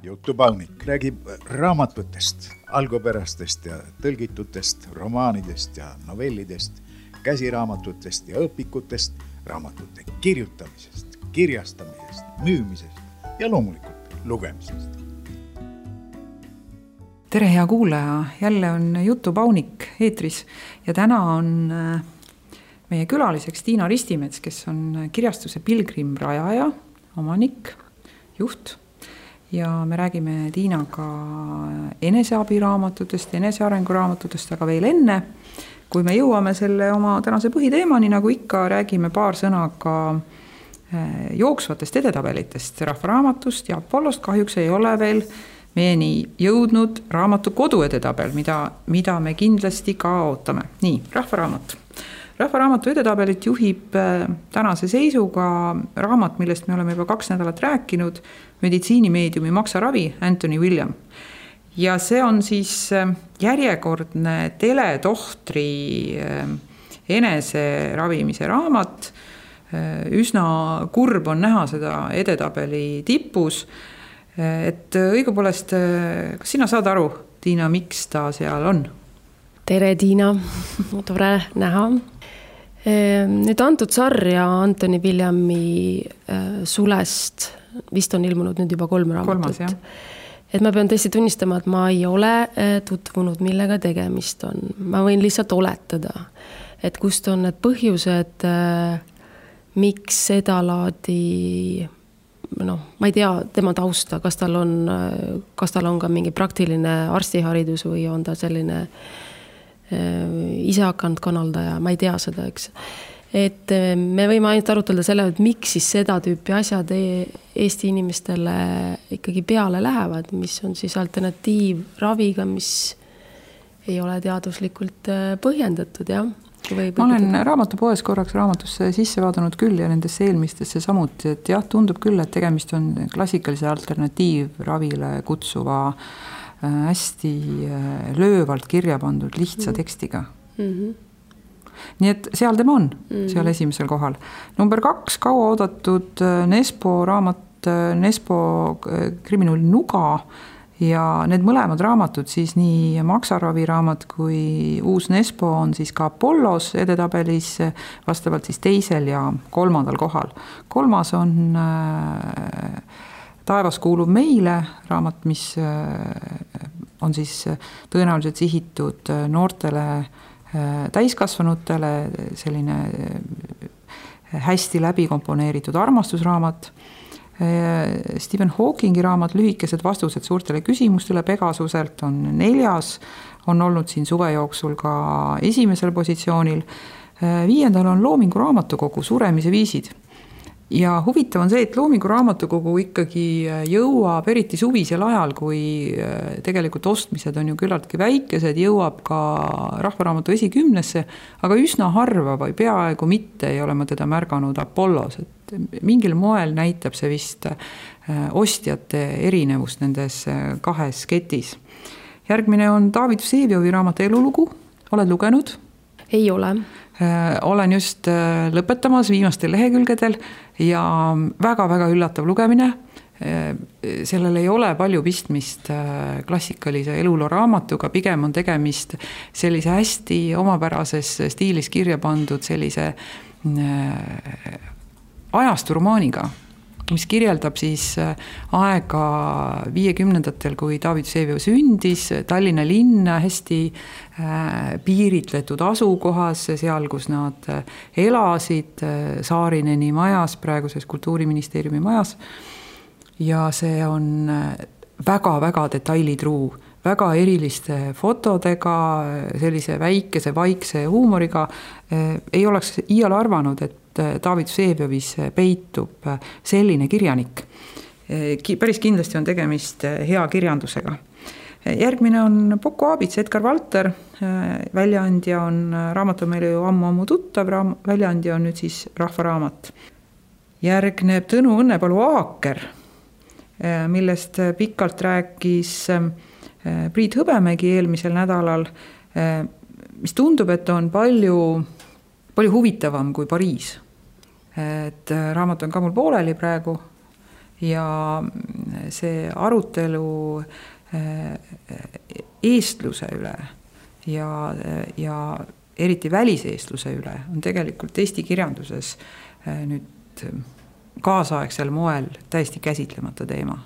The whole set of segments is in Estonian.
Jutupaunik räägib raamatutest, algupärastest ja tõlgitutest, romaanidest ja novellidest, käsiraamatutest ja õpikutest, raamatute kirjutamisest, kirjastamisest, müümisest ja loomulikult lugemisest. Tere, hea kuulaja! Jälle on Jutupaunik eetris ja täna on meie külaliseks Tiina Ristimets, kes on kirjastuse Pilgrim rajaja, omanik, juht. Ja me räägime Tiinaga eneseabiraamatutest, enesearenguraamatutest, aga veel enne, kui me jõuame selle oma tänase põhiteemani, nagu ikka räägime paar sõna ka jooksvatest edetabelitest, rahvaraamatust ja Apollost kahjuks ei ole veel meieni jõudnud raamatu koduedetabel, mida me kindlasti ka ootame. Nii, rahvaraamatu edetabelit juhib tänase seisuga raamat, millest me oleme juba 2 nädalat rääkinud, meditsiinimeediumi Maksaravi, Anthony William. Ja see on siis järjekordne teletohtri eneseravimise raamat. Üsna kurb on näha seda edetabeli tipus. Et õigupoolest, kas sina saad aru, Tiina, miks ta seal on? Tere, Tiina. Tore näha. Nüüd antud sarja Anthony Williami sulest vist on ilmunud nüüd juba 3 raamatut. 3, et ma pean tõesti tunnistama, et ma ei ole tutvunud, millega tegemist on. Ma võin lihtsalt oletada, et kust on need põhjused, miks seda laadi, ma ei tea tema tausta, kas tal on ka mingi praktiline arstiharidus või on ta selline ise hakanud kanaldaja, ma ei tea seda, eks. Et me võime ainult arutada selle, et miks siis seda tüüpi asjad Eesti inimestele ikkagi peale lähevad, mis on siis alternatiiv raviga, mis ei ole teaduslikult põhjendatud, jah. Ma olen raamatupoes korraks raamatusse sisse vaadanud küll ja nendesse eelmistesse samuti, et jah, tundub küll, et tegemist on klassikalise alternatiivravile kutsuva hästi löövalt kirja pandud lihtsa tekstiga. Nii et seal tema on, seal esimesel kohal. Number 2, kaua oodatud Nespo raamat, Nespo kriminaalne Nuga ja need mõlemad raamatud, siis nii Maksaravi raamat kui uus Nespo on siis ka Apollos edetabelis vastavalt siis 2. ja 3. kohal. 3. on Taevas kuulub meile raamat, mis on siis tõenäoliselt sihitud noortele täiskasvanutele, selline hästi läbi komponeeritud armastusraamat. Stephen Hawkingi raamat Lühikesed vastused suurtele küsimustele Pegasuselt on 4, on olnud siin suve jooksul ka 1. positsioonil. 5. on Loomingu raamatukogu Suremise viisid. Ja huvitav on see, et Loomingu raamatukogu ikkagi jõuab eriti suvisel ajal, kui tegelikult ostmised on ju küllaltki väikesed, jõuab ka rahvaraamatu esikümnesse, aga üsna harva või peaaegu mitte ei ole ma teda märganud Apollos. Et mingil moel näitab see vist ostjate erinevust nendes 2 ketis. Järgmine on David Vsevioi raamat Elulugu. Oled lugenud? Ei ole. Olen just lõpetamas viimastel lehekülgedel ja väga-väga üllatav lugemine. Sellel ei ole palju pistmist klassikalise eluloo raamatuga, pigem on tegemist sellise hästi omapärases stiilis kirja pandud sellise ajasturomaaniga, mis kirjeldab siis aega 50-ndatel, kui David Vsevioi sündis, Tallinna linn hästi piiritletud asukohas, seal, kus nad elasid, Saarineni majas, praeguses Kultuuriministeeriumi majas. Ja see on väga-väga detailitruu, väga eriliste fotodega, sellise väikese, vaikse huumoriga. Ei oleks iial arvanud, et David Vseviovis peitub selline kirjanik. Päris kindlasti on tegemist hea kirjandusega. Järgmine on Poko Aabits, Edgar Valter. Väljaandja on raamatu meile ju ammu tuttav, väljaandja on nüüd siis rahvaraamat. Järgneb Tõnu Õnnepalu Aaker, millest pikalt rääkis Priit Hõbemägi eelmisel nädalal, mis tundub, et on palju huvitavam kui Pariis. Et raamat on ka mul pooleli praegu ja see arutelu eestluse üle ja eriti väliseestluse üle on tegelikult Eesti kirjanduses nüüd kaasaegsel moel täiesti käsitlemata teema.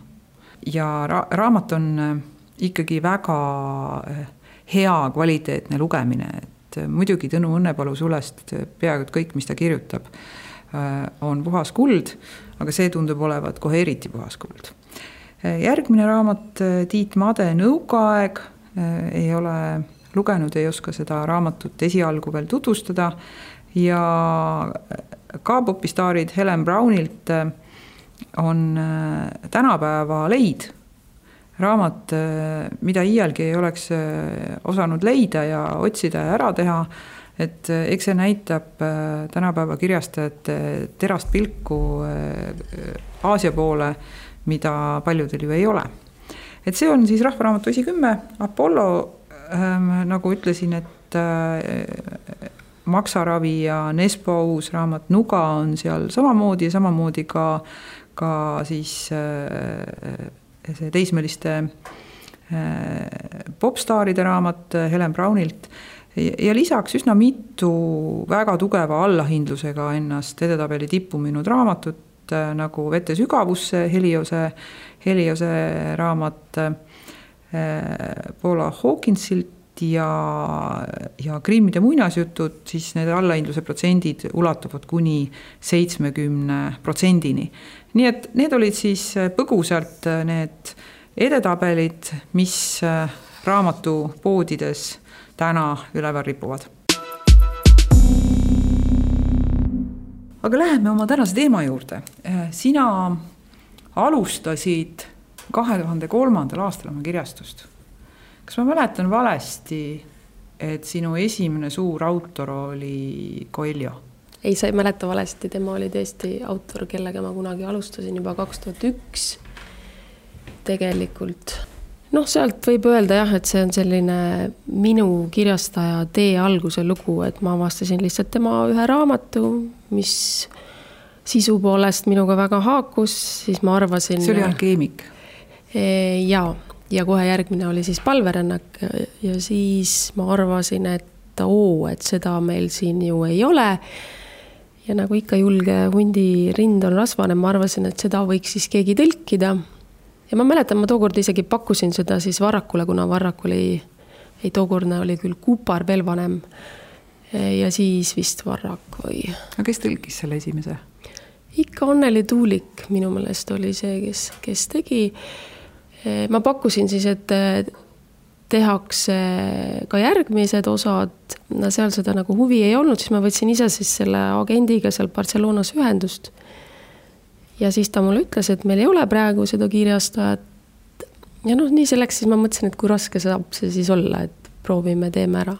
Ja raamat on ikkagi väga hea kvaliteetne lugemine, et muidugi Tõnu Õnnepalu sulest peaaegu kõik, mis ta kirjutab, on puhas kuld, aga see tundub olevat kohe eriti puhas kuld. Järgmine raamat Tiit Made Nõukaaeg, ei ole lugenud, ei oska seda raamatut esialgu veel tutvustada ja K-popistaarid Helen Brownilt on tänapäeva leid. Raamat, mida iialgi ei oleks osanud leida ja otsida ja ära teha, et eks see näitab tänapäeva kirjastajate terast pilku Aasia poole, mida paljudel ju ei ole. Et see on siis Rahvaraamatu esi10, Apollo, nagu ütlesin, et Maksaravi ja Nespo uus raamat Nuga on seal samamoodi ja samamoodi ka siis see teismeliste popstaaride raamat Helen Brownilt ja lisaks üsna mitu väga tugeva allahindlusega ennast edetabeli tippu minud raamatut nagu Vete sügavusse, Heliose raamat Paula Hawkinsilt ja Grimmide muinasjutud, siis need allahindluse protsendid ulatuvad kuni 70%-ni. Nii et need olid siis põgusalt need edetabelid, mis raamatupoodides täna üleval ripuvad. Aga läheme oma tänase teema juurde. Sina alustasid 2003. aastal oma kirjastust. Kas ma mäletan valesti, et sinu esimene suur autor oli Coelho? Ei, sa ei mäleta valesti, tema oli tõesti autor, kellega ma kunagi alustasin juba 2001 tegelikult. Sealt võib öelda jah, et see on selline minu kirjastaja tee alguse lugu, et ma avastasin lihtsalt tema ühe raamatu, mis sisu poolest minuga väga haakus, siis ma arvasin... See oli Alkeemik? Ja kohe järgmine oli siis Palverännak ja siis ma arvasin, et seda meil siin ju ei ole. Ja nagu ikka julge hundi rind on rasvane, ma arvasin, et seda võiks siis keegi tõlkida. Ja ma mäletan, ma tookord isegi pakkusin seda siis Varrakule, kuna Varrak oli, tookordne oli küll Kupar veel vanem. Ja siis vist Varrak või... Aga kes tõlkis selle esimese? Ikka Anneli Tuulik minu meelest oli see, kes tegi. Ma pakkusin siis, et tehakse ka järgmised osad, seal seda nagu huvi ei olnud, siis ma võtsin ise siis selle agendiga seal Barcelonas ühendust. Ja siis ta mulle ütles, et meil ei ole praegu seda kirjastajat. Ja nii selleks siis ma mõtlesin, et kui raske saab see siis olla, et proovime, teeme ära.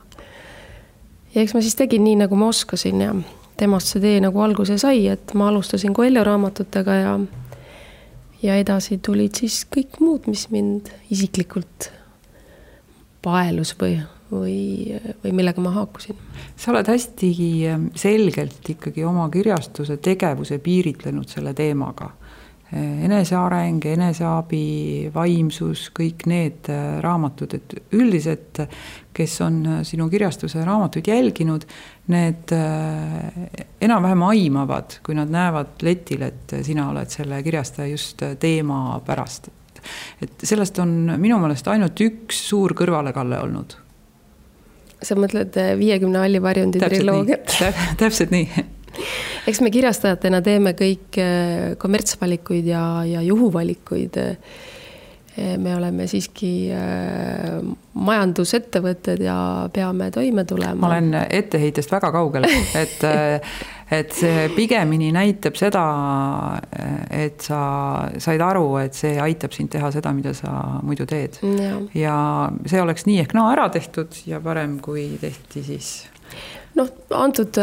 Ja eks ma siis tegin nii, nagu ma oskasin ja temast see tee nagu alguse sai, et ma alustasin Coelho raamatutega ja edasi tulid siis kõik muud, mis mind isiklikult paelus või millega ma haakusin. Sa oled hästi selgelt ikkagi oma kirjastuse tegevuse piiritlenud selle teemaga. Eneseareng, eneseabi, vaimsus, kõik need raamatud, et üldiselt, kes on sinu kirjastuse raamatuid jälginud, need enam-vähem aimavad, kui nad näevad letil, et sina oled selle kirjastaja just teema pärast. Et sellest on minu meelest ainult üks suur kõrvalekalle olnud. Sa mõtled 50 Allivarjundi triloogiat? Täpselt nii. Eks me kirjastajatena teeme kõik kommertsvalikuid ja juhuvalikuid. Me oleme siiski majandusettevõtted ja peame toime tulema. Ma olen etteheitest väga kaugel, et see pigemini näitab seda, et sa said aru, et see aitab sind teha seda, mida sa muidu teed. Ja see oleks nii ehk ära tehtud ja parem, kui tehti siis... Antud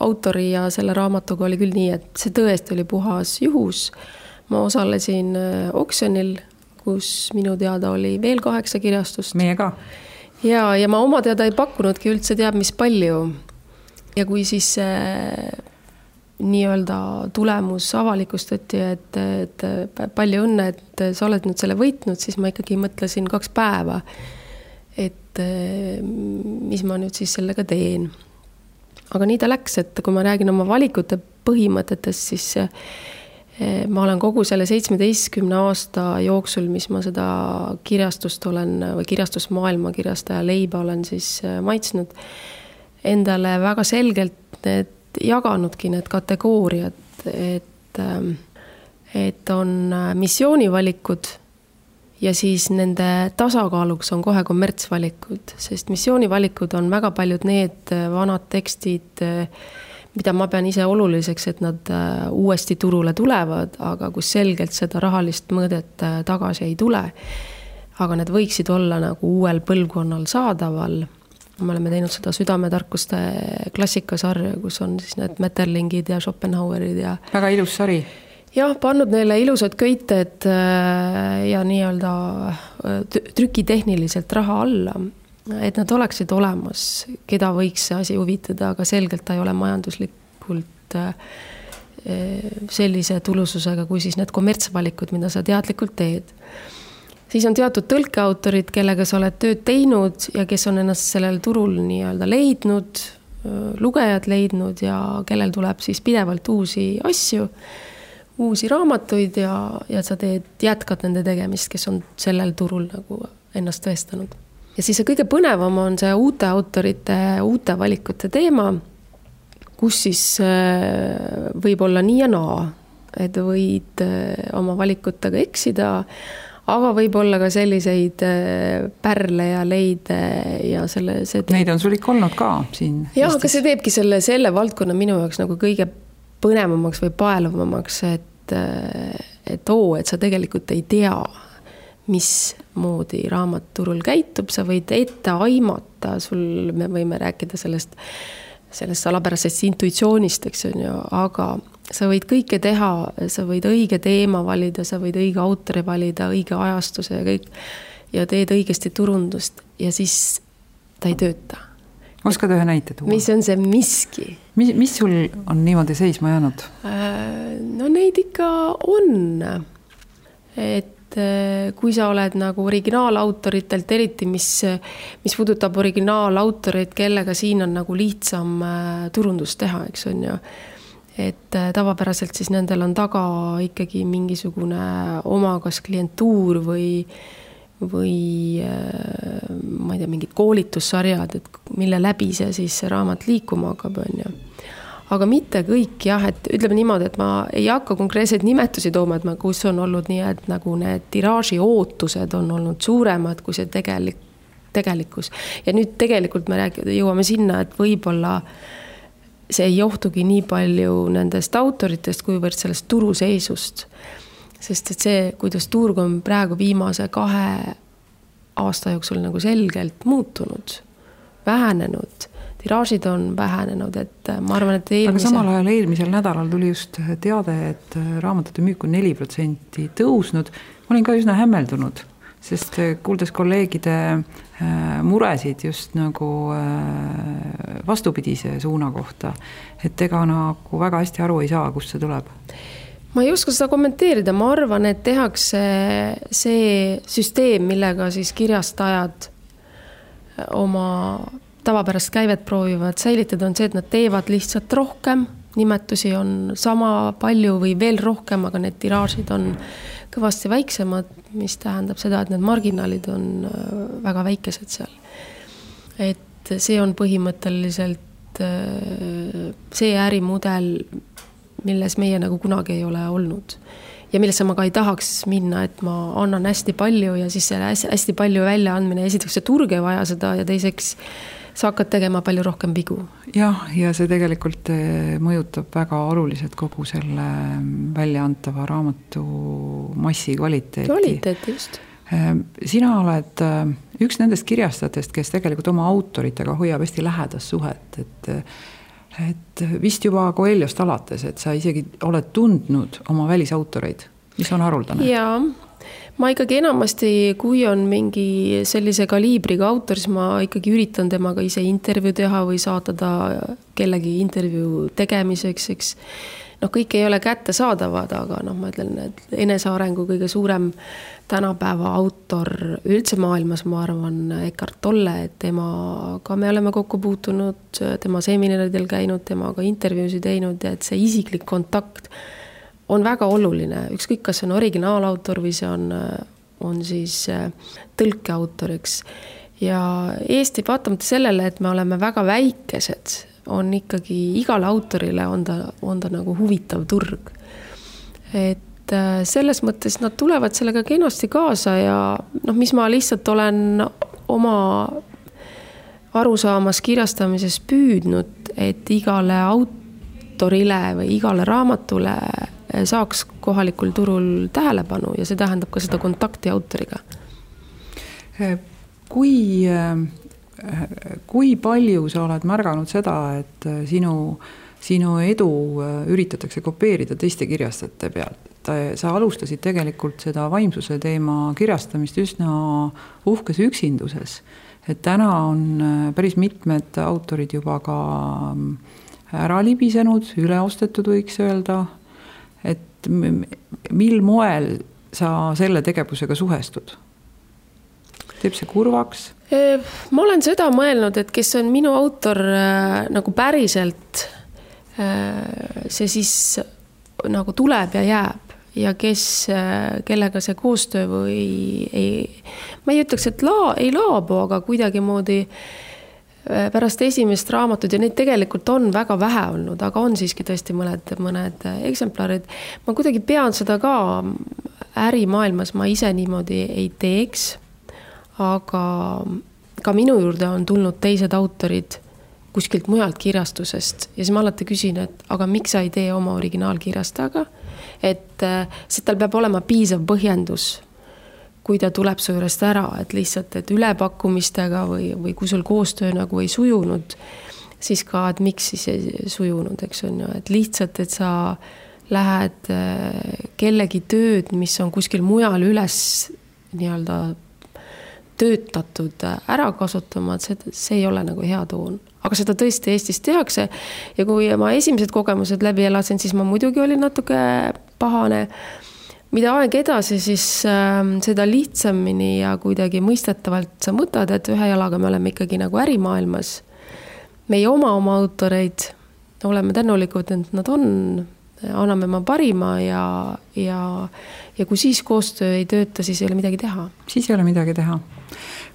autori ja selle raamatuga oli küll nii, et see tõesti oli puhas juhus. Ma osalesin oksjonil, kus minu teada oli veel 8 kirjastust. Meie ka. Ja ma oma teada ei pakkunudki üldse teab mis palju. Ja kui siis nii-öelda tulemus avalikustati, et palju õnne, et sa oled nüüd selle võitnud, siis ma ikkagi mõtlesin 2 päeva, et mis ma nüüd siis sellega teen. Aga nii ta läks, et kui ma räägin oma valikute põhimõtetest, siis ma olen kogu selle 17 aasta jooksul, mis ma seda kirjastust olen või kirjastusmaailma kirjastaja leiba olen siis maitsnud, endale väga selgelt need jaganudki need kategooriad, et on missioonivalikud ja siis nende tasakaaluks on kohe kommertsvalikud, sest missioonivalikud on väga paljud need vanad tekstid, mida ma pean ise oluliseks, et nad uuesti turule tulevad, aga kus selgelt seda rahalist mõõdet tagasi ei tule. Aga need võiksid olla nagu uuel põlvkonnal saadaval. Me oleme teinud seda südametarkuste klassikasarja, kus on siis need Metterlingid ja Schopenhauerid ja... Väga ilus sari. Jah, pannud neile ilusad köited ja nii-öelda trükitehniliselt raha alla, et nad oleksid olemas, keda võiks see asi huvitada, aga selgelt ta ei ole majanduslikult sellise tulususega, kui siis need kommertsvalikud, mida sa teadlikult teed. Siis on teatud tõlkeautorid, kellega sa oled tööd teinud ja kes on ennast sellel turul nii-öelda leidnud, lugejad leidnud ja kellel tuleb siis pidevalt uusi asju, uusi raamatuid ja sa jätkad nende tegemist, kes on sellel turul nagu ennast tõestanud. Ja siis see kõige põnevam on see uute autorite, uute valikute teema, kus siis võib olla nii ja naa, et võid oma valikutega eksida, aga võib olla ka selliseid pärle ja leide ja Neid on sul ikka olnud ka siin? Jah, aga see teebki selle valdkonna minu jaoks nagu kõige põnevamaks või paeluvamaks, et sa tegelikult ei tea, mismoodi raamat turul käitub, sa võid ette aimata, me võime rääkida sellest salapärasest intuitsioonist, eks on ju, aga sa võid kõike teha, sa võid õige teema valida, sa võid õige autori valida, õige ajastuse ja kõik, ja teed õigesti turundust ja siis ta ei tööta. Oskad ühe näite tuua? Mis on see miski? Mis sul on niimoodi seisma jäänud? No neid ikka on. Et kui sa oled nagu originaalautoritelt, eriti mis puudutab originaalautoreid, kellega siin on nagu lihtsam turundust teha, eks on ju. Et tavapäraselt siis nendel on taga ikkagi mingisugune oma kas klientuur või ma ei tea, mingid koolitussarjad, et mille läbi see raamat liikuma hakkab, on ju. Aga mitte kõik, jah, et ütleme niimoodi, et ma ei hakka konkreetseid nimetusi tooma, et kus on olnud nii, et nagu need tiraaži ootused on olnud suuremad kui see tegelikkus. Ja nüüd tegelikult me jõuame sinna, et võib-olla see ei johtugi nii palju nendest autoritest, kuivõrd sellest turuseisust. Sest et see, kuidas turg on praegu viimase 2 aasta jooksul nagu selgelt muutunud, vähenenud, tiraažid on vähenenud, et ma arvan, et Aga samal ajal eelmisel nädalal tuli just teade, et raamatute müük on 4% tõusnud. Ma olin ka üsna hämmeldunud, sest kuuldes kolleegide muresid just nagu vastupidise suuna kohta, et ega nagu väga hästi aru ei saa, kust see tuleb. Ma ei oska seda kommenteerida, ma arvan, et tehakse see süsteem, millega siis kirjastajad oma tavapärast käivet proovivad säilitada, on see, et nad teevad lihtsalt rohkem, nimetusi on sama palju või veel rohkem, aga need tiraažid on kõvasti väiksemad, mis tähendab seda, et need marginaalid on väga väikesed seal. Et see on põhimõtteliselt see ärimudel, milles meie nagu kunagi ei ole olnud. Ja millesse ma ka ei tahaks minna, et ma annan hästi palju ja siis selle hästi palju väljaandmine. Esiteks see turg ei vaja seda ja teiseks sa hakkad tegema palju rohkem vigu. Jah, ja see tegelikult mõjutab väga oluliselt kogu selle väljaantava raamatu massi kvaliteeti. Kvaliteeti, just. Sina oled üks nendest kirjastajatest, kes tegelikult oma autoritega hoiab hästi lähedast suhet, et vist juba Coelhost alates, et sa isegi oled tundnud oma välisautoreid, mis on haruldane. Jaa, ma ikkagi enamasti, kui on mingi sellise kaliibriga autor, siis ma ikkagi üritan temaga ise intervjuu teha või saata ta kellegi intervjuu tegemiseks, eks. Kõik ei ole kättesaadavad, aga ma ütlen, et enesearengu kõige suurem tänapäeva autor üldse maailmas, ma arvan, Eckhart Tolle, et temaga me oleme kokku puutunud, tema seminaridel käinud, temaga intervjuusid teinud ja et see isiklik kontakt on väga oluline, ükskõik kas see on originaalautor või see on siis tõlkeautor, eks. Ja Eesti, vaatamata sellele, et me oleme väga väikesed, on ikkagi igale autorile on ta nagu huvitav turg. Et selles mõttes nad tulevad sellega kenasti kaasa ja mis ma lihtsalt olen oma arusaamas kirjastamises püüdnud, et igale autorile või igale raamatule saaks kohalikul turul tähelepanu ja see tähendab ka seda kontakti autoriga. Kui palju sa oled märganud seda, et sinu edu üritatakse kopeerida teiste kirjastajate pealt? Sa alustasid tegelikult seda vaimsuse teema kirjastamist üsna uhkes üksinduses. Et täna on päris mitmed autorid juba ka ära libisenud, üleostetud võiks öelda. Et mil moel sa selle tegevusega suhestud? Teeb see kurvaks? Ma olen seda mõelnud, et kes on minu autor nagu päriselt, see siis nagu tuleb ja jääb ja kellega see koostöö või ma ei ütleks, et ei laabu, aga kuidagi moodi pärast esimest raamatut ja neid tegelikult on väga vähe olnud, aga on siiski tõesti mõned eksemplarid. Ma kuidagi pean seda ka ärimaailmas, ma ise niimoodi ei teeks, aga ka minu juurde on tulnud teised autorid kuskilt mujalt kirjastusest ja siis ma alati küsin, et aga miks sa ei tee oma originaalkirjastajaga, et tal peab olema piisav põhjendus, kui ta tuleb su juurest ära, et lihtsalt, et ülepakkumistega või kui sul koostöö nagu ei sujunud, siis ka, et miks siis ei sujunud, eks on ju, et lihtsalt, et sa lähed kellegi tööd, mis on kuskil mujal üles nii-öelda töötatud ära kasutama, et see ei ole nagu hea toon. Aga seda tõesti Eestis tehakse ja kui ma esimesed kogemused läbi elasin, siis ma muidugi olin natuke pahane. Mida aeg edasi, siis seda lihtsamini ja kuidagi mõistetavalt sa mõtled, et ühe jalaga me oleme ikkagi nagu ärimaailmas. Meie oma autoreid oleme tänulikud, et nad on, anname ma parima ja kui siis koostöö ei tööta, siis ei ole midagi teha. Siis ei ole midagi teha.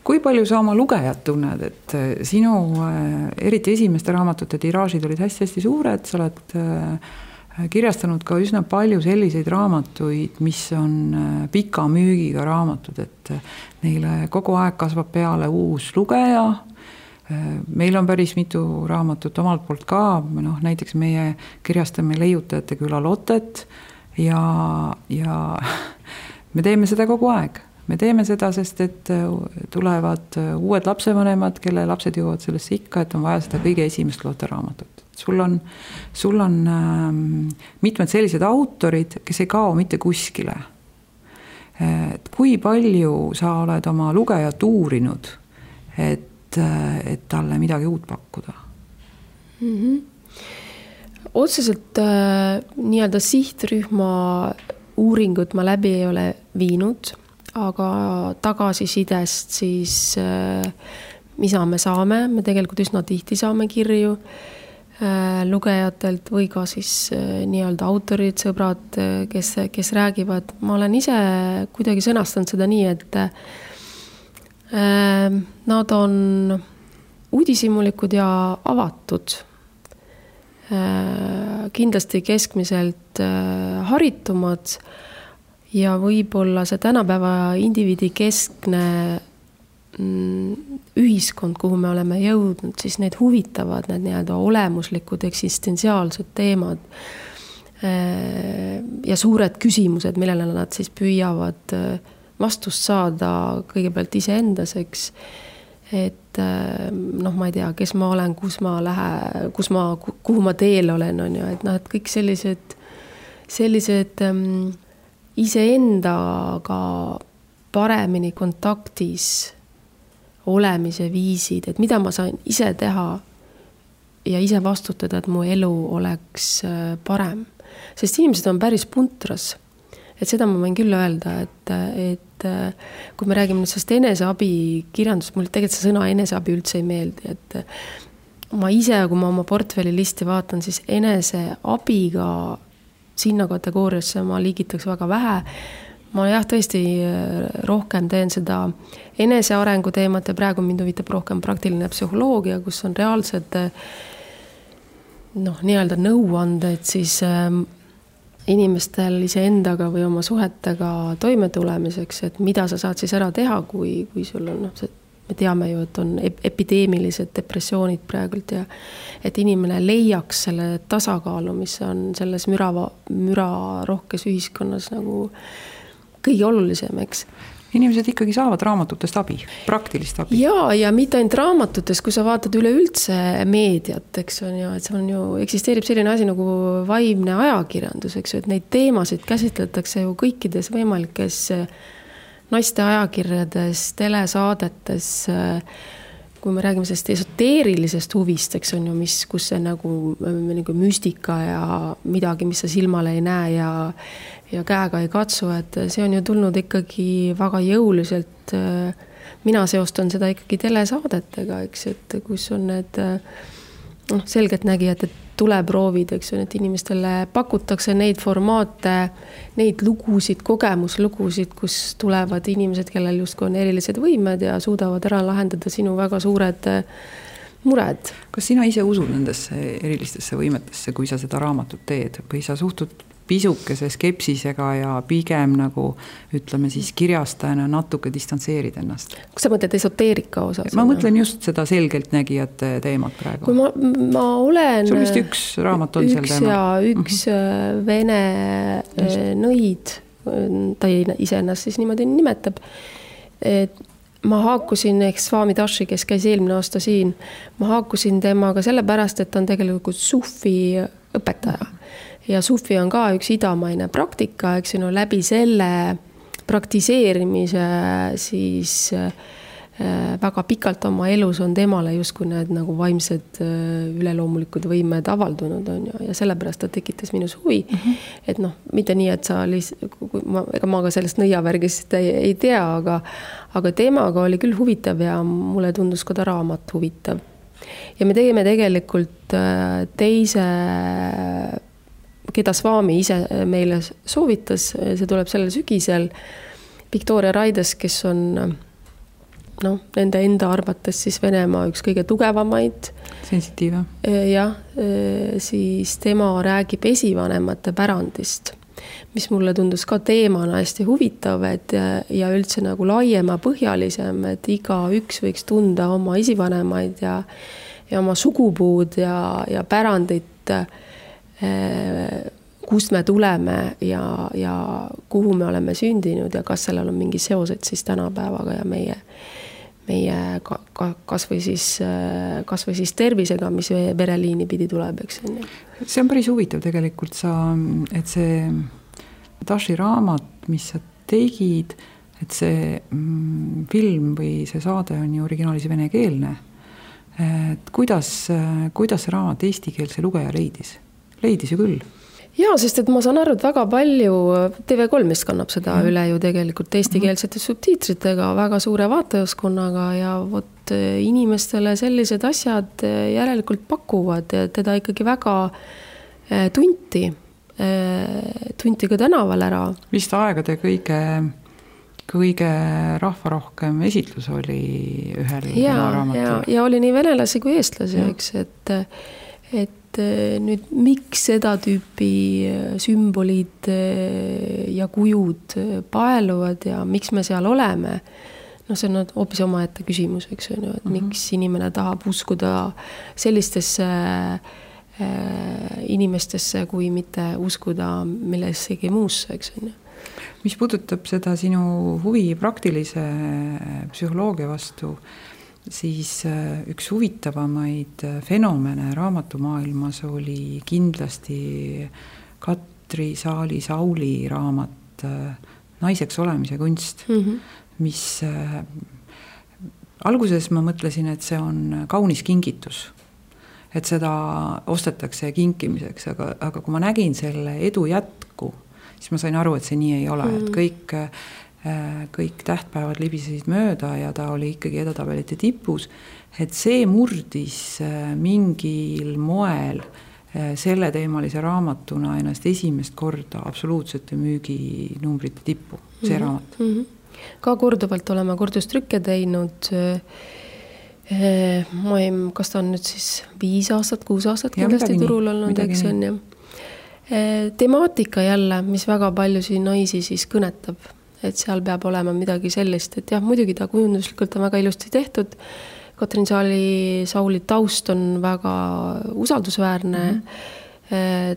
Kui palju sa oma lugejad tunned, et sinu eriti esimeste raamatute tiraažid olid hästi-hästi suured, sa oled kirjastanud ka üsna palju selliseid raamatuid, mis on pika müügiga raamatud, et neile kogu aeg kasvab peale uus lugeja. Meil on päris mitu raamatut omalt poolt ka, näiteks meie kirjastame Leiutajate küla Lottet ja me teeme seda kogu aeg. Me teeme seda, sest et tulevad uued lapsevanemad, kelle lapsed jõuavad sellesse ikka, et on vaja seda kõige esimest Lotte-raamatut. Sul on mitmed sellised autorid, kes ei kao mitte kuskile. Et kui palju sa oled oma lugejat uurinud, et talle midagi uut pakkuda? Otseselt nii-öelda sihtrühma uuringut ma läbi ei ole viinud, aga tagasisidest siis mida me saame, me tegelikult üsna tihti saame kirju lugejatelt või ka siis nii-öelda autorid, sõbrad, kes räägivad. Ma olen ise kuidagi sõnastanud seda nii, et nad on uudishimulikud ja avatud. Kindlasti keskmiselt haritumad ja võib-olla see tänapäeva indiviidi keskne ühiskond, kuhu me oleme jõudnud, siis need huvitavad, need nii-öelda olemuslikud eksistentsiaalsed teemad ja suured küsimused, millele nad siis püüavad vastust saada kõigepealt iseendaseks, et ma ei tea, kes ma olen, kus ma lähen, kuhu ma teel olen, on ju, et kõik sellised iseendaga paremini kontaktis olemise viisid, et mida ma sain ise teha ja ise vastutada, et mu elu oleks parem. Sest inimesed on päris puntras. Et seda ma võin küll öelda, et kui me räägime sellest eneseabi kirjandust, mulle tegelikult see sõna eneseabi üldse ei meeldi, et ma ise, kui ma oma portfelli listi vaatan, siis eneseabiga sinna kategooriasse ma liigitaks väga vähe. Ma jah, tõesti rohkem teen seda enesearengu teemat ja praegu mind huvitab rohkem praktiline psühholoogia, kus on reaalsed nii-öelda nõuanded siis inimestel iseendaga või oma suhetega toime tulemiseks, et mida sa saad siis ära teha, kui sul on, me teame ju, et on epideemilised depressioonid praegult ja et inimene leiaks selle tasakaalu, mis on selles müra rohkes ühiskonnas nagu kõige olulisem, eks. Inimesed ikkagi saavad raamatutest abi, praktilist abi. Ja mitte ainult raamatutest, kui sa vaatad üleüldse meediat, eks on ju, et see on ju, eksisteerib selline asi nagu vaimne ajakirjandus, eks ju, et neid teemasid käsitletakse ju kõikides võimalikes naiste ajakirjades, telesaadetes, kui me räägime sellest esoteerilisest huvist, eks on ju, kus see nagu müstika ja midagi, mis sa silmale ei näe ja käega ei katsu, et see on ju tulnud ikkagi väga jõuliselt. Mina seostan seda ikkagi telesaadetega, eks, et kus on need selgelt nägijad, et tuleproovid, eks on, et inimestele pakutakse neid formaate, neid lugusid, kogemuslugusid, kus tulevad inimesed, kellel justkui on erilised võimed ja suudavad ära lahendada sinu väga suured mured. Kas sina ise usud nendesse erilistesse võimetesse, kui sa seda raamatut teed või sa suhtud pisukese skepsisega ja pigem nagu, ütleme siis kirjastajana natuke distantseerid ennast? Kus sa mõtled esoteerika osas? Ma mõtlen just seda selgelt nägijate teemat praegu. Kui ma olen... Sul vist üks raamat on seal teema? Üks vene nõid, ta ise ennast siis niimoodi nimetab. Ma haakusin, ehk Swami Dashi, kes käis eelmine aasta siin, ma haakusin temaga sellepärast, et ta on tegelikult sufi õpetaja. Ja sufi on ka üks idamaine praktika, eks ju, läbi selle praktiseerimise siis väga pikalt oma elus on temale justkui need nagu vaimsed üleloomulikud võimed avaldunud on ju, ja sellepärast ta tekitas minus huvi, et mitte nii, et sa ega ma ka sellest nõiavärgist ei tea, aga teemaga oli küll huvitav ja mulle tundus ka ta raamat huvitav. Ja me tegime tegelikult teise, keda Swami ise meile soovitas, see tuleb sellel sügisel, Victoria Raides, kes on nende enda arvates siis Venemaa üks kõige tugevamaid. Sensitiive. Jah, siis tema räägib esivanemate pärandist, mis mulle tundus ka teemana hästi huvitav, ja üldse nagu laiema põhjalisem, et iga üks võiks tunda oma esivanemaid ja oma sugupuud ja pärandit, kust me tuleme ja kuhu me oleme sündinud ja kas sellel on mingi seosed siis tänapäevaga ja meie kas või siis tervisega, mis vereliini pidi tuleb, eks. See on päris huvitav tegelikult, et see Dashi raamat, mis sa tegid, et see film või see saade on ju originaalis venekeelne. Et kuidas see raamat eestikeelse lugeja leidis? Leidis ju küll. Jaa, sest et ma saan aru, et väga palju TV3 vist kannab seda üle ju tegelikult eestikeelsete subtiitritega, väga suure vaatajaskonnaga ja vot inimestele sellised asjad järelikult pakuvad ja teda ikkagi väga tunti ka tänaval ära. Vist aegade kõige rahvarohkem esitlus oli ühel raamatul. Ja oli nii venelasi kui eestlasi, eks, et nüüd miks seda tüüpi sümbolid ja kujud paeluvad ja miks me seal oleme, see on hoopis omaette küsimus, eks on ju, et miks inimene tahab uskuda sellistesse inimestesse, kui mitte uskuda millessegi muusse, eks on ju. Mis puudutab seda sinu huvi praktilise psühholoogia vastu, siis üks huvitavamaid fenomene raamatumaailmas oli kindlasti Katri Saali-Sauli raamat naiseks olemise kunst, mis alguses ma mõtlesin, et see on kaunis kingitus, et seda ostetakse kinkimiseks, aga kui ma nägin selle edu jätku, siis ma sain aru, et see nii ei ole, et kõik tähtpäevad libisesid mööda ja ta oli ikkagi edetabelite tipus, et see murdis mingil moel selle teemalise raamatuna ennast esimest korda absoluutsete müüginumbrite tippu, see raamat. Ka korduvalt olema kordustrükke teinud. Kas ta on nüüd siis 5 aastat, 6 aastat kindlasti turul olnud, eks on ja. Temaatika jälle, mis väga paljusi naisi siis kõnetab, et seal peab olema midagi sellist, et jah, muidugi ta kujunduslikult on väga ilusti tehtud. Katrin Sauli taust on väga usaldusväärne.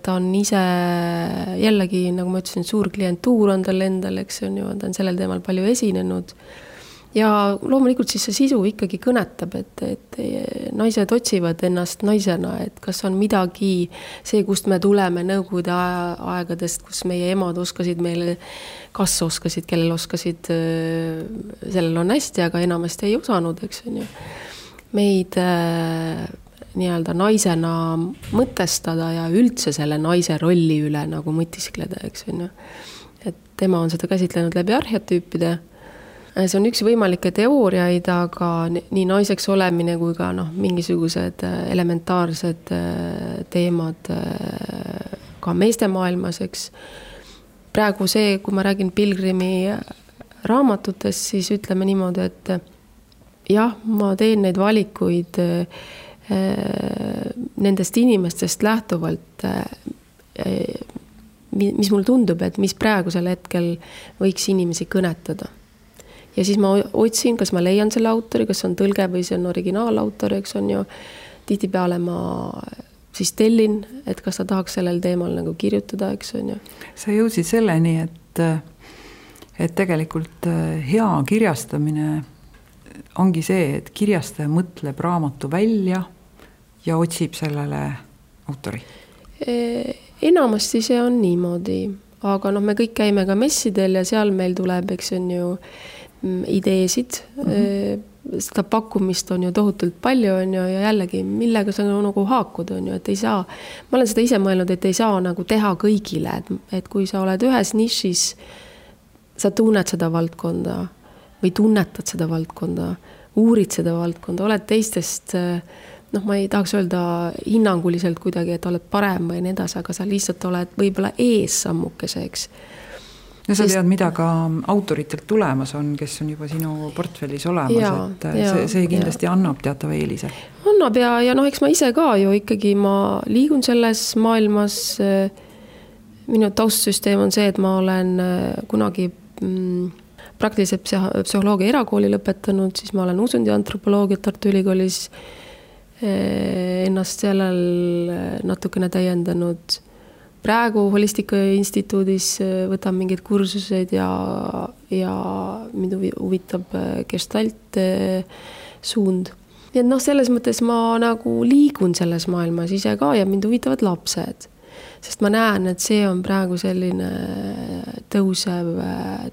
Ta on ise jällegi, nagu ma ütlesin, suur klientuur on tal endal, eks on ju, ta on sellel teemal palju esinenud. Ja loomulikult siis see sisu ikkagi kõnetab, et naised otsivad ennast naisena, et kas on midagi see, kust me tuleme nõukogude aegadest, kus meie emad oskasid meile, kas oskasid, kellel oskasid, sellel on hästi, aga enamasti ei osanud, eks on ju. Meid nii-öelda naisena mõtestada ja üldse selle naise rolli üle nagu mõtiskleda, eks on ju. Et tema on seda käsitlenud läbi arhetüüpide. See on üks võimalikke teooriaid, aga nii naiseks olemine kui ka mingisugused elementaarsed teemad ka meeste maailmas, eks. Praegu see, kui ma räägin Pilgrimi raamatutest, siis ütleme niimoodi, et jah, ma teen neid valikuid nendest inimestest lähtuvalt, mis mul tundub, et mis praegusel hetkel võiks inimesi kõnetada. Ja siis ma otsin, kas ma leian selle autori, kas on tõlge või see on originaalautor, eks on ju. Tihtipeale ma siis tellin, et kas ta tahaks sellel teemal nagu kirjutada, eks on ju. Sa jõudsid selleni, et tegelikult hea kirjastamine ongi see, et kirjastaja mõtleb raamatu välja ja otsib sellele autori. Enamasti see on niimoodi, aga me kõik käime ka messidel ja seal meil tuleb, eks on ju, ideesid, seda pakkumist on ju tohutult palju on ju, ja jällegi millega sa nagu haakud on ju, et ei saa, ma olen seda ise mõelnud, et ei saa nagu teha kõigile, et kui sa oled ühes nišis, sa tunned seda valdkonda või tunnetad seda valdkonda, uurid seda valdkonda, oled teistest, ma ei tahaks öelda hinnanguliselt kuidagi, et oled parem või nii edasi, aga sa lihtsalt oled võib-olla ees sammukeseks. Ja sa tead, mida ka autoritelt tulemas on, kes on juba sinu portfellis olemas, see kindlasti annab teatava eelise. Annab ja eks ma ise ka ju ikkagi ma liigun selles maailmas. Minu taustsüsteem on see, et ma olen kunagi praktilise psühholoogia erakooli lõpetanud, siis ma olen usundi antropoloogiat Tartu Ülikoolis ennast sellel natukene täiendanud. Praegu Holistika instituudis võtan mingid kursused ja mind huvitab gestalt suund. Nii et selles mõttes ma nagu liigun selles maailmas ise ka ja mind huvitavad lapsed. Sest ma näen, et see on praegu selline tõusev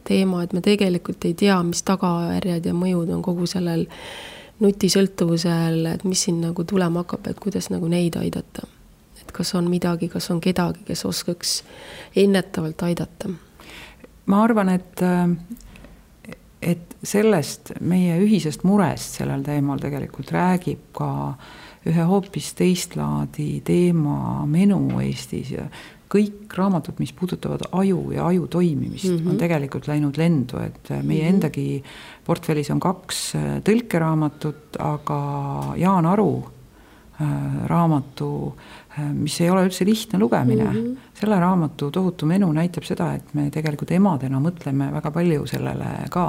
teema, et me tegelikult ei tea, mis tagajärjed ja mõjud on kogu sellel nutisõltuvusel, et mis siin nagu tulema hakkab, et kuidas nagu neid aidata. Kas on midagi, kas on kedagi, kes oskaks ennetavalt aidata? Ma arvan, et sellest meie ühisest murest sellel teemal tegelikult räägib ka ühe hoopis teistlaadi teema menu Eestis ja kõik raamatud, mis puudutavad aju ja aju toimimist, on tegelikult läinud lendu, et meie endagi portfellis on 2 tõlkeraamatut, aga Jaan Aru raamatu, mis ei ole üldse lihtne lugemine. Selle raamatu tohutu menu näitab seda, et me tegelikult emadena mõtleme väga palju sellele ka.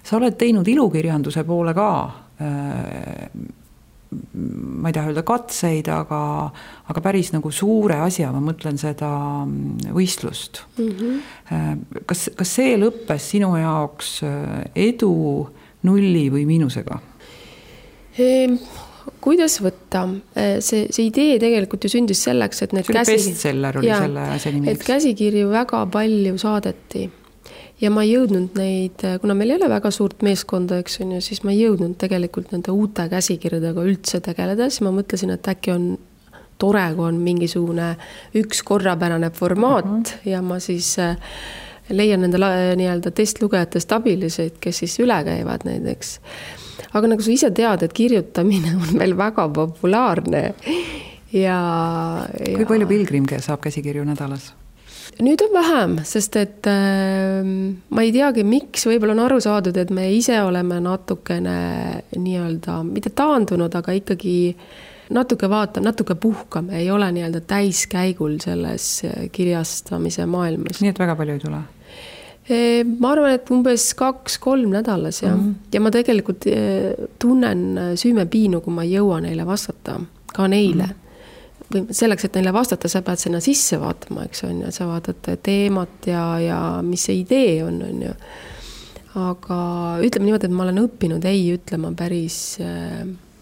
Sa oled teinud ilukirjanduse poole ka, ma ei taha öelda katseid, aga päris nagu suure asja, ma mõtlen seda võistlust. Kas see lõppes sinu jaoks edu, nulli või miinusega? kuidas võtta? See idee tegelikult ju sündis selleks, et need bestseller oli selle asja nimi. Et käsikirju väga palju saadeti ja ma ei jõudnud neid, kuna meil ei ole väga suurt meeskonda, eks on ju, siis ma ei jõudnud tegelikult nende uute käsikirjadega üldse tegeleda, siis ma mõtlesin, et äkki on tore, kui on mingisugune üks korrapärane formaat ja ma siis leian nende nii-öelda testlugejatest abiliseid, kes siis üle käivad näiteks. Aga nagu sa ise tead, et kirjutamine on meil väga populaarne ja... Kui palju pilgrim saab käsikirju nädalas? Nüüd on vähem, sest et ma ei teagi, miks võib-olla on aru saadud, et me ise oleme natukene nii-öelda, mitte taandunud, aga ikkagi natuke puhkame, ei ole nii-öelda täiskäigul selles kirjastamise maailmas. Nii et väga palju ei tule? Ma arvan, et umbes 2-3 nädalas ja, ja ma tegelikult tunnen süümepiinu, kui ma ei jõua neile vastata, ka neile. Või selleks, et neile vastata, sa pead sinna sisse vaatama, eks on ja sa vaatad teemat ja mis see idee on ju. Aga ütleme niimoodi, et ma olen õppinud ei ütlema päris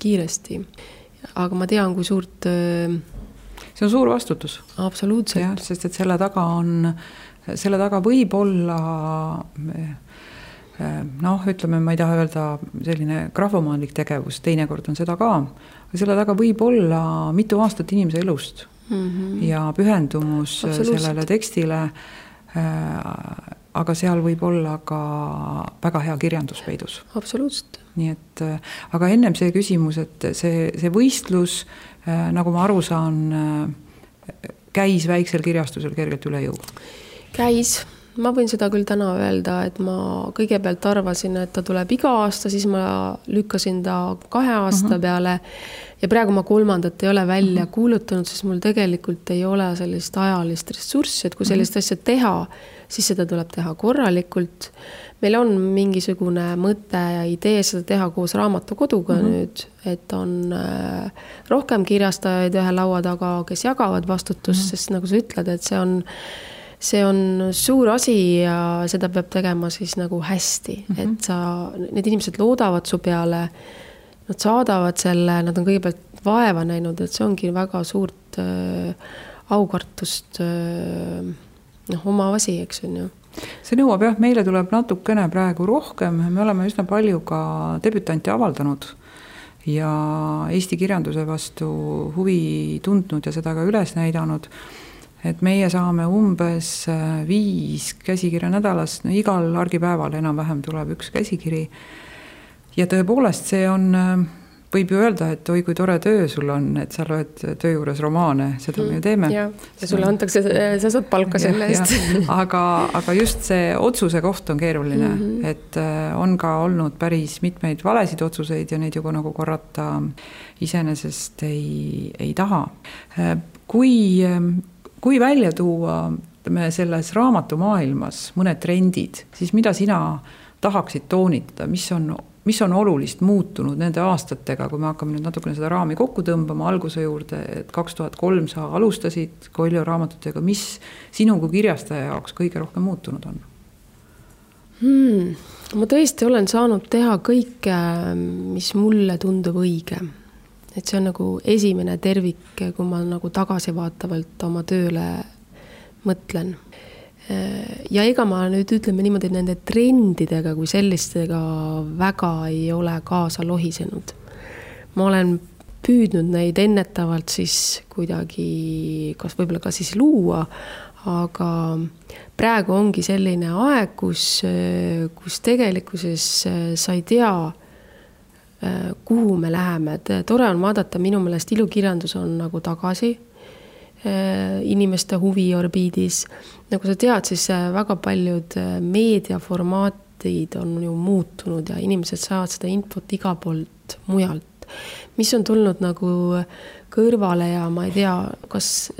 kiiresti. Aga ma tean, kui suurt... See on suur vastutus. Absoluutselt. Ja, sest et selle taga võib olla... ütleme, ma ei taha öelda selline grafomaanlik tegevus, teinekord on seda ka, aga selle taga võib olla mitu aastat inimese elust ja pühendumus sellele tekstile, aga seal võib olla ka väga hea kirjanduspeidus. Absoluutselt. Nii et, aga ennem see küsimus, et see võistlus, nagu ma aru saan, käis väiksel kirjastusel kergelt üle jõu? Käis. Ma võin seda küll täna öelda, et ma kõigepealt arvasin, et ta tuleb iga aasta, siis ma lükkasin ta 2 aasta peale ja praegu ma 3. ei ole välja kuulutanud, sest mul tegelikult ei ole sellist ajalist ressurssi, et kui sellist asja teha, siis seda tuleb teha korralikult. Meil on mingisugune mõte ja idee seda teha koos Raamatukoduga nüüd, et on rohkem kirjastajaid ühe laua taga, kes jagavad vastutust, sest nagu sa ütled, et see on suur asi ja seda peab tegema siis nagu hästi, et need inimesed loodavad su peale, nad saadavad selle, nad on kõigepealt vaeva näinud, et see ongi väga suurt aukartust oma asi, eks on ju. See nõuab jah, meile tuleb natukene praegu rohkem, me oleme üsna palju ka debütanti avaldanud ja Eesti kirjanduse vastu huvi tundnud ja seda ka üles näidanud. Et meie saame umbes 5 käsikirja nädalas, igal argipäeval enam-vähem tuleb üks käsikiri. Ja tõepoolest see on, võib ju öelda, et oi kui tore töö sul on, et sa loed töö juures romaane, seda me ju teeme. Ja sulle antakse, sa saad palka selle eest. Aga just see otsuse koht on keeruline, et on ka olnud päris mitmeid valesid otsuseid ja neid ju nagu korrata iseenesest ei taha. Kui välja tuua selles raamatumaailmas mõned trendid, siis mida sina tahaksid toonitada, mis on olulist muutunud nende aastatega, kui me hakkame nüüd natukene seda raami kokku tõmbama alguse juurde, et 2003 sa alustasid Koiljo raamatutega, mis sinu kui kirjastaja jaoks kõige rohkem muutunud on? Ma tõesti olen saanud teha kõike, mis mulle tundub õige. Et see on nagu esimene tervik, kui ma nagu tagasivaatavalt oma tööle mõtlen. Ja ega ma nüüd ütleme niimoodi, nende trendidega kui sellistega väga ei ole kaasa lohisenud. Ma olen püüdnud neid ennetavalt siis kuidagi, kas võib-olla ka siis luua, aga praegu ongi selline aeg, kus tegelikkuses sa ei tea, kuhu me läheme. Tore on vaadata, minu meelest ilukirjandus on nagu tagasi inimeste huvi orbiidis. Nagu sa tead, siis väga paljud meediaformaatid on ju muutunud ja inimesed saavad seda infot iga poolt mujalt. Mis on tulnud nagu kõrvale ja ma ei tea, kas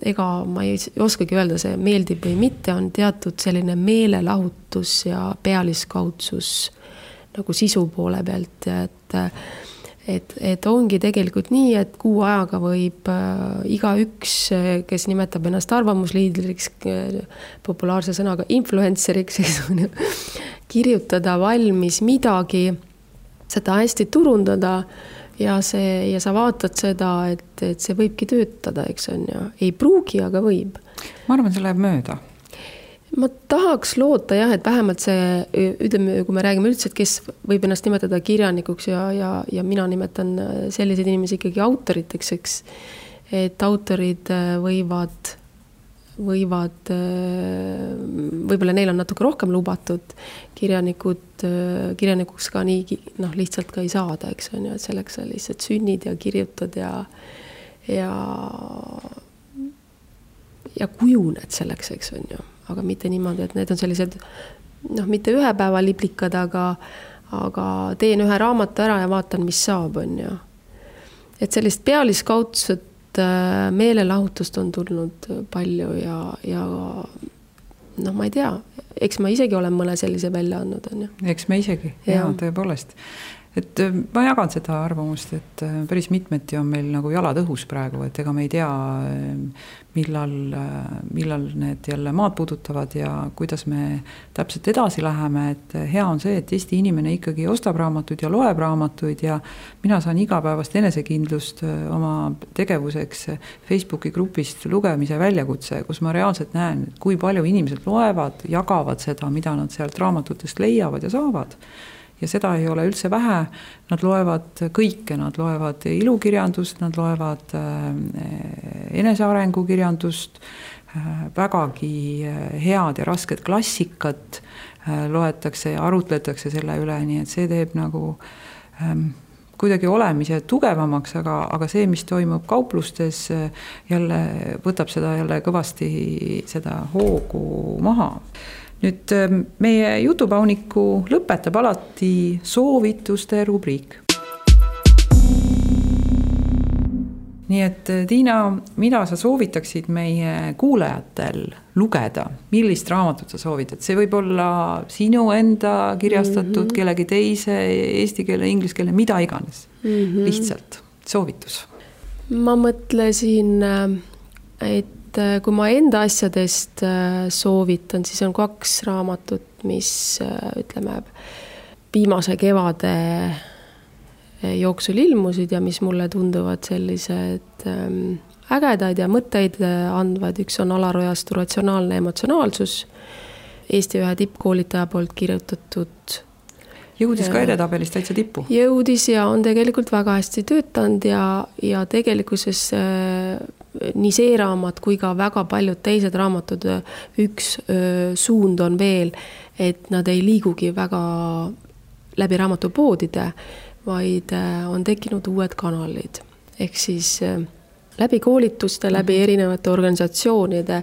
ega ma ei oskagi öelda, see meeldib või mitte, on teatud selline meelelahutus ja pealiskaudsus nagu sisu poole pealt, et ongi tegelikult nii, et kuu ajaga võib iga üks, kes nimetab ennast arvamusliidriks, populaarse sõnaga influenceriks, kirjutada valmis midagi, seda hästi turundada ja sa vaatad seda, et see võibki töötada, eks on ju. Ei pruugi, aga võib. Ma arvan, see läheb mööda. Ma tahaks loota jah, et vähemalt see, ütleme, kui me räägime üldse, et kes võib ennast nimetada kirjanikuks ja mina nimetan selliseid inimesi ikkagi autoriteks, eks, et autorid võivad võib-olla neil on natuke rohkem lubatud, kirjanikuks ka nii lihtsalt ka ei saada, eks on ju, et selleks sa lihtsalt sünnid ja kirjutad ja kujuned selleks, eks on ju. Aga mitte niimoodi, et need on sellised, mitte ühe päeva liblikad, aga teen ühe raamatu ära ja vaatan, mis saab, on ju. Et sellist pealiskaudset meelelahutust on tulnud palju ja ma ei tea, eks ma isegi olen mõne sellise välja andnud, on ju. Eks me isegi, ja tõepoolest. Et ma jagan seda arvamust, et päris mitmeti on meil nagu jalad õhus praegu, et ega me ei tea, millal need jälle maad puudutavad ja kuidas me täpselt edasi läheme, et hea on see, et Eesti inimene ikkagi ostab raamatuid ja loeb raamatuid ja mina saan igapäevast enesekindlust oma tegevuseks Facebooki grupist lugemise väljakutse, kus ma reaalselt näen, kui palju inimesed loevad, jagavad seda, mida nad sealt raamatutest leiavad ja saavad. Ja seda ei ole üldse vähe, nad loevad kõike, nad loevad ilukirjandust, nad loevad enesearengukirjandust, vägagi head ja rasked klassikat loetakse ja arutletakse selle üle, nii et see teeb nagu kuidagi olemise tugevamaks, aga see, mis toimub kauplustes, jälle võtab seda jälle kõvasti seda hoogu maha. Nüüd meie jutupauniku lõpetab alati soovituste rubriik. Nii et Tiina, mida sa soovitaksid meie kuulajatel lugeda? Millist raamatut sa soovitad? See võib olla sinu enda kirjastatud, kellegi teise, eesti keele, inglise keele, mida iganes. Lihtsalt soovitus. Ma mõtlesin, et kui ma enda asjadest soovitan, siis on 2 raamatut, mis ütleme viimase kevade jooksul ilmusid ja mis mulle tunduvad sellised ägedaid ja mõtteid andvad. Üks on Alar Ojastu Ratsionaalne emotsionaalsus, Eesti ühe tippkoolitaja poolt kirjutatud. Jõudis ka edetabelis täitsa tippu. Jõudis ja on tegelikult väga hästi töötanud ja tegelikkuses nii see raamat kui ka väga paljud teised raamatud, üks suund on veel, et nad ei liigugi väga läbi raamatupoodide, vaid on tekkinud uued kanalid. Ehk siis läbi koolituste, läbi erinevate organisatsioonide.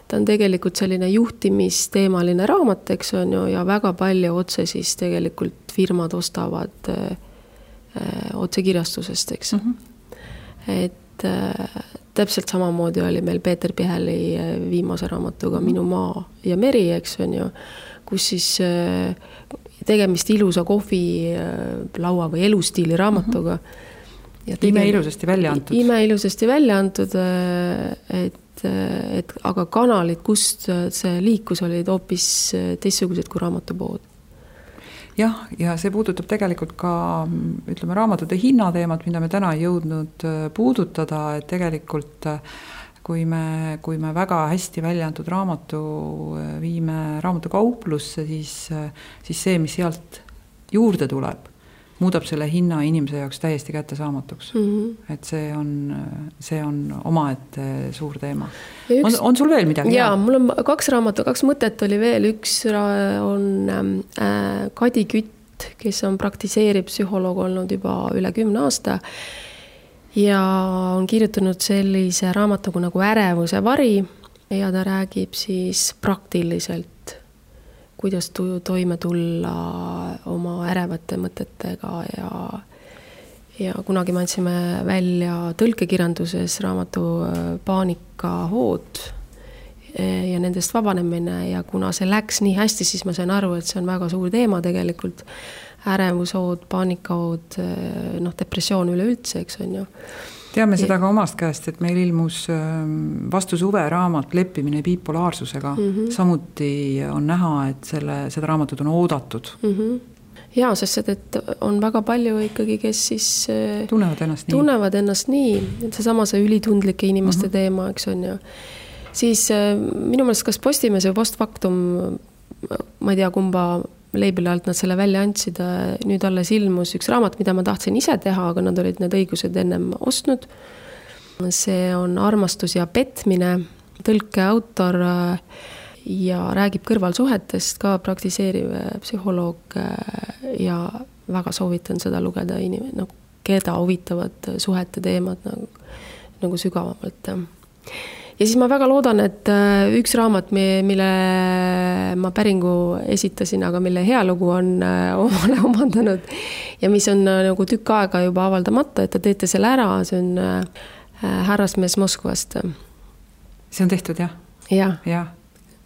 Ta on tegelikult selline juhtimisteemaline raamat, eks on ju, ja väga palju otse siis tegelikult firmad ostavad otse kirjastusest, eks. Et täpselt samamoodi oli meil Peeter Piheli viimase raamatuga Minu maa ja meri, eks on ju, kus siis tegemist ilusa kohvilaua või elustiili raamatuga. Imeilusasti välja antud. Imeilusasti välja antud, et aga kanalid, kust see liikus, olid hoopis teistsugused kui raamatupood. Jah, ja see puudutab tegelikult ka, ütleme, raamatute hinnateemat, mida me täna ei jõudnud puudutada, et tegelikult kui me väga hästi välja antud raamatu viime raamatukauplusse, siis see, mis sealt juurde tuleb, muudab selle hinna inimese jaoks täiesti kättesaamatuks. Et see on omaette suur teema. On sul veel midagi? Jaa, mul on 2 raamatu, 2 mõtet oli veel. Üks on Kadi Kütt, kes on praktiseerib psühholoog olnud juba üle 10 aasta ja on kirjutanud sellise raamatugu nagu Ärevuse vari ja ta räägib siis praktiliselt, kuidas toime tulla oma ärevate mõtetega ja kunagi me andsime välja tõlkekirjanduses raamatu Paanikahood ja nendest vabanemine ja kuna see läks nii hästi, siis ma sain aru, et see on väga suur teema tegelikult. Ärevushood, paanikahood, depressioon üleüldse, eks on ju. Teame seda ka omast käest, et meil ilmus vastu suve raamat Leppimine bipolaarsusega. Samuti on näha, et seda raamatut on oodatud. jaa, sest et on väga palju ikkagi, kes siis tunnevad ennast nii. Seesama see ülitundlike inimeste teema, eks on ju. Siis minu meelest kas Postimees või Postfaktum, ma ei tea, kumba leibili alt nad selle välja andsid, nüüd alles ilmus üks raamat, mida ma tahtsin ise teha, aga nad olid need õigused ennem ostnud. See on Armastus ja petmine, tõlke autor ja räägib kõrvalsuhetest, ka praktiseeriv psühholoog ja väga soovitan seda lugeda keda huvitavad suhete teemad nagu sügavamalt. Ja siis ma väga loodan, et üks raamat, mille ma päringu esitasin, aga mille hea lugu on omale omandanud ja mis on nagu tükk aega juba avaldamata, et te teete selle ära, see on Härrasmees Moskvast. See on tehtud, jah? Jah.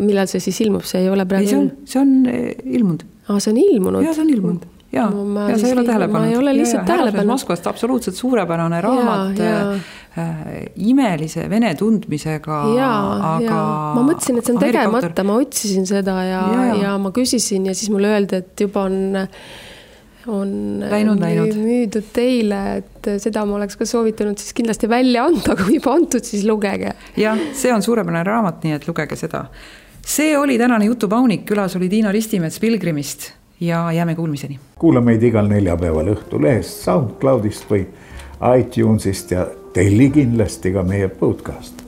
Millal see siis ilmub? See ei ole praegu... See on ilmunud. See on ilmunud? Jah, see on ilmunud. Ja sa ei ole tähelepanud. Ma ei ole lihtsalt tähelepanud. Moskvast absoluutselt suurepärane raamat, imelise vene tundmisega. Aga ma mõtlesin, et see on tegemata, ma otsisin seda ja ma küsisin ja siis mulle öeldi, et juba on müüdud teile, et seda ma oleks ka soovitanud siis kindlasti välja anda, kui juba antud, siis lugege. Jah, see on suurepärane raamat, nii et lugege seda. See oli tänane Jutupaunik, külas oli Tiina Ristimets Pilgrimist. Ja jääme kuulmiseni. Kuula meid igal neljapäeval Õhtulehest, SoundCloudist või iTunesist ja telli kindlasti ka meie podcast.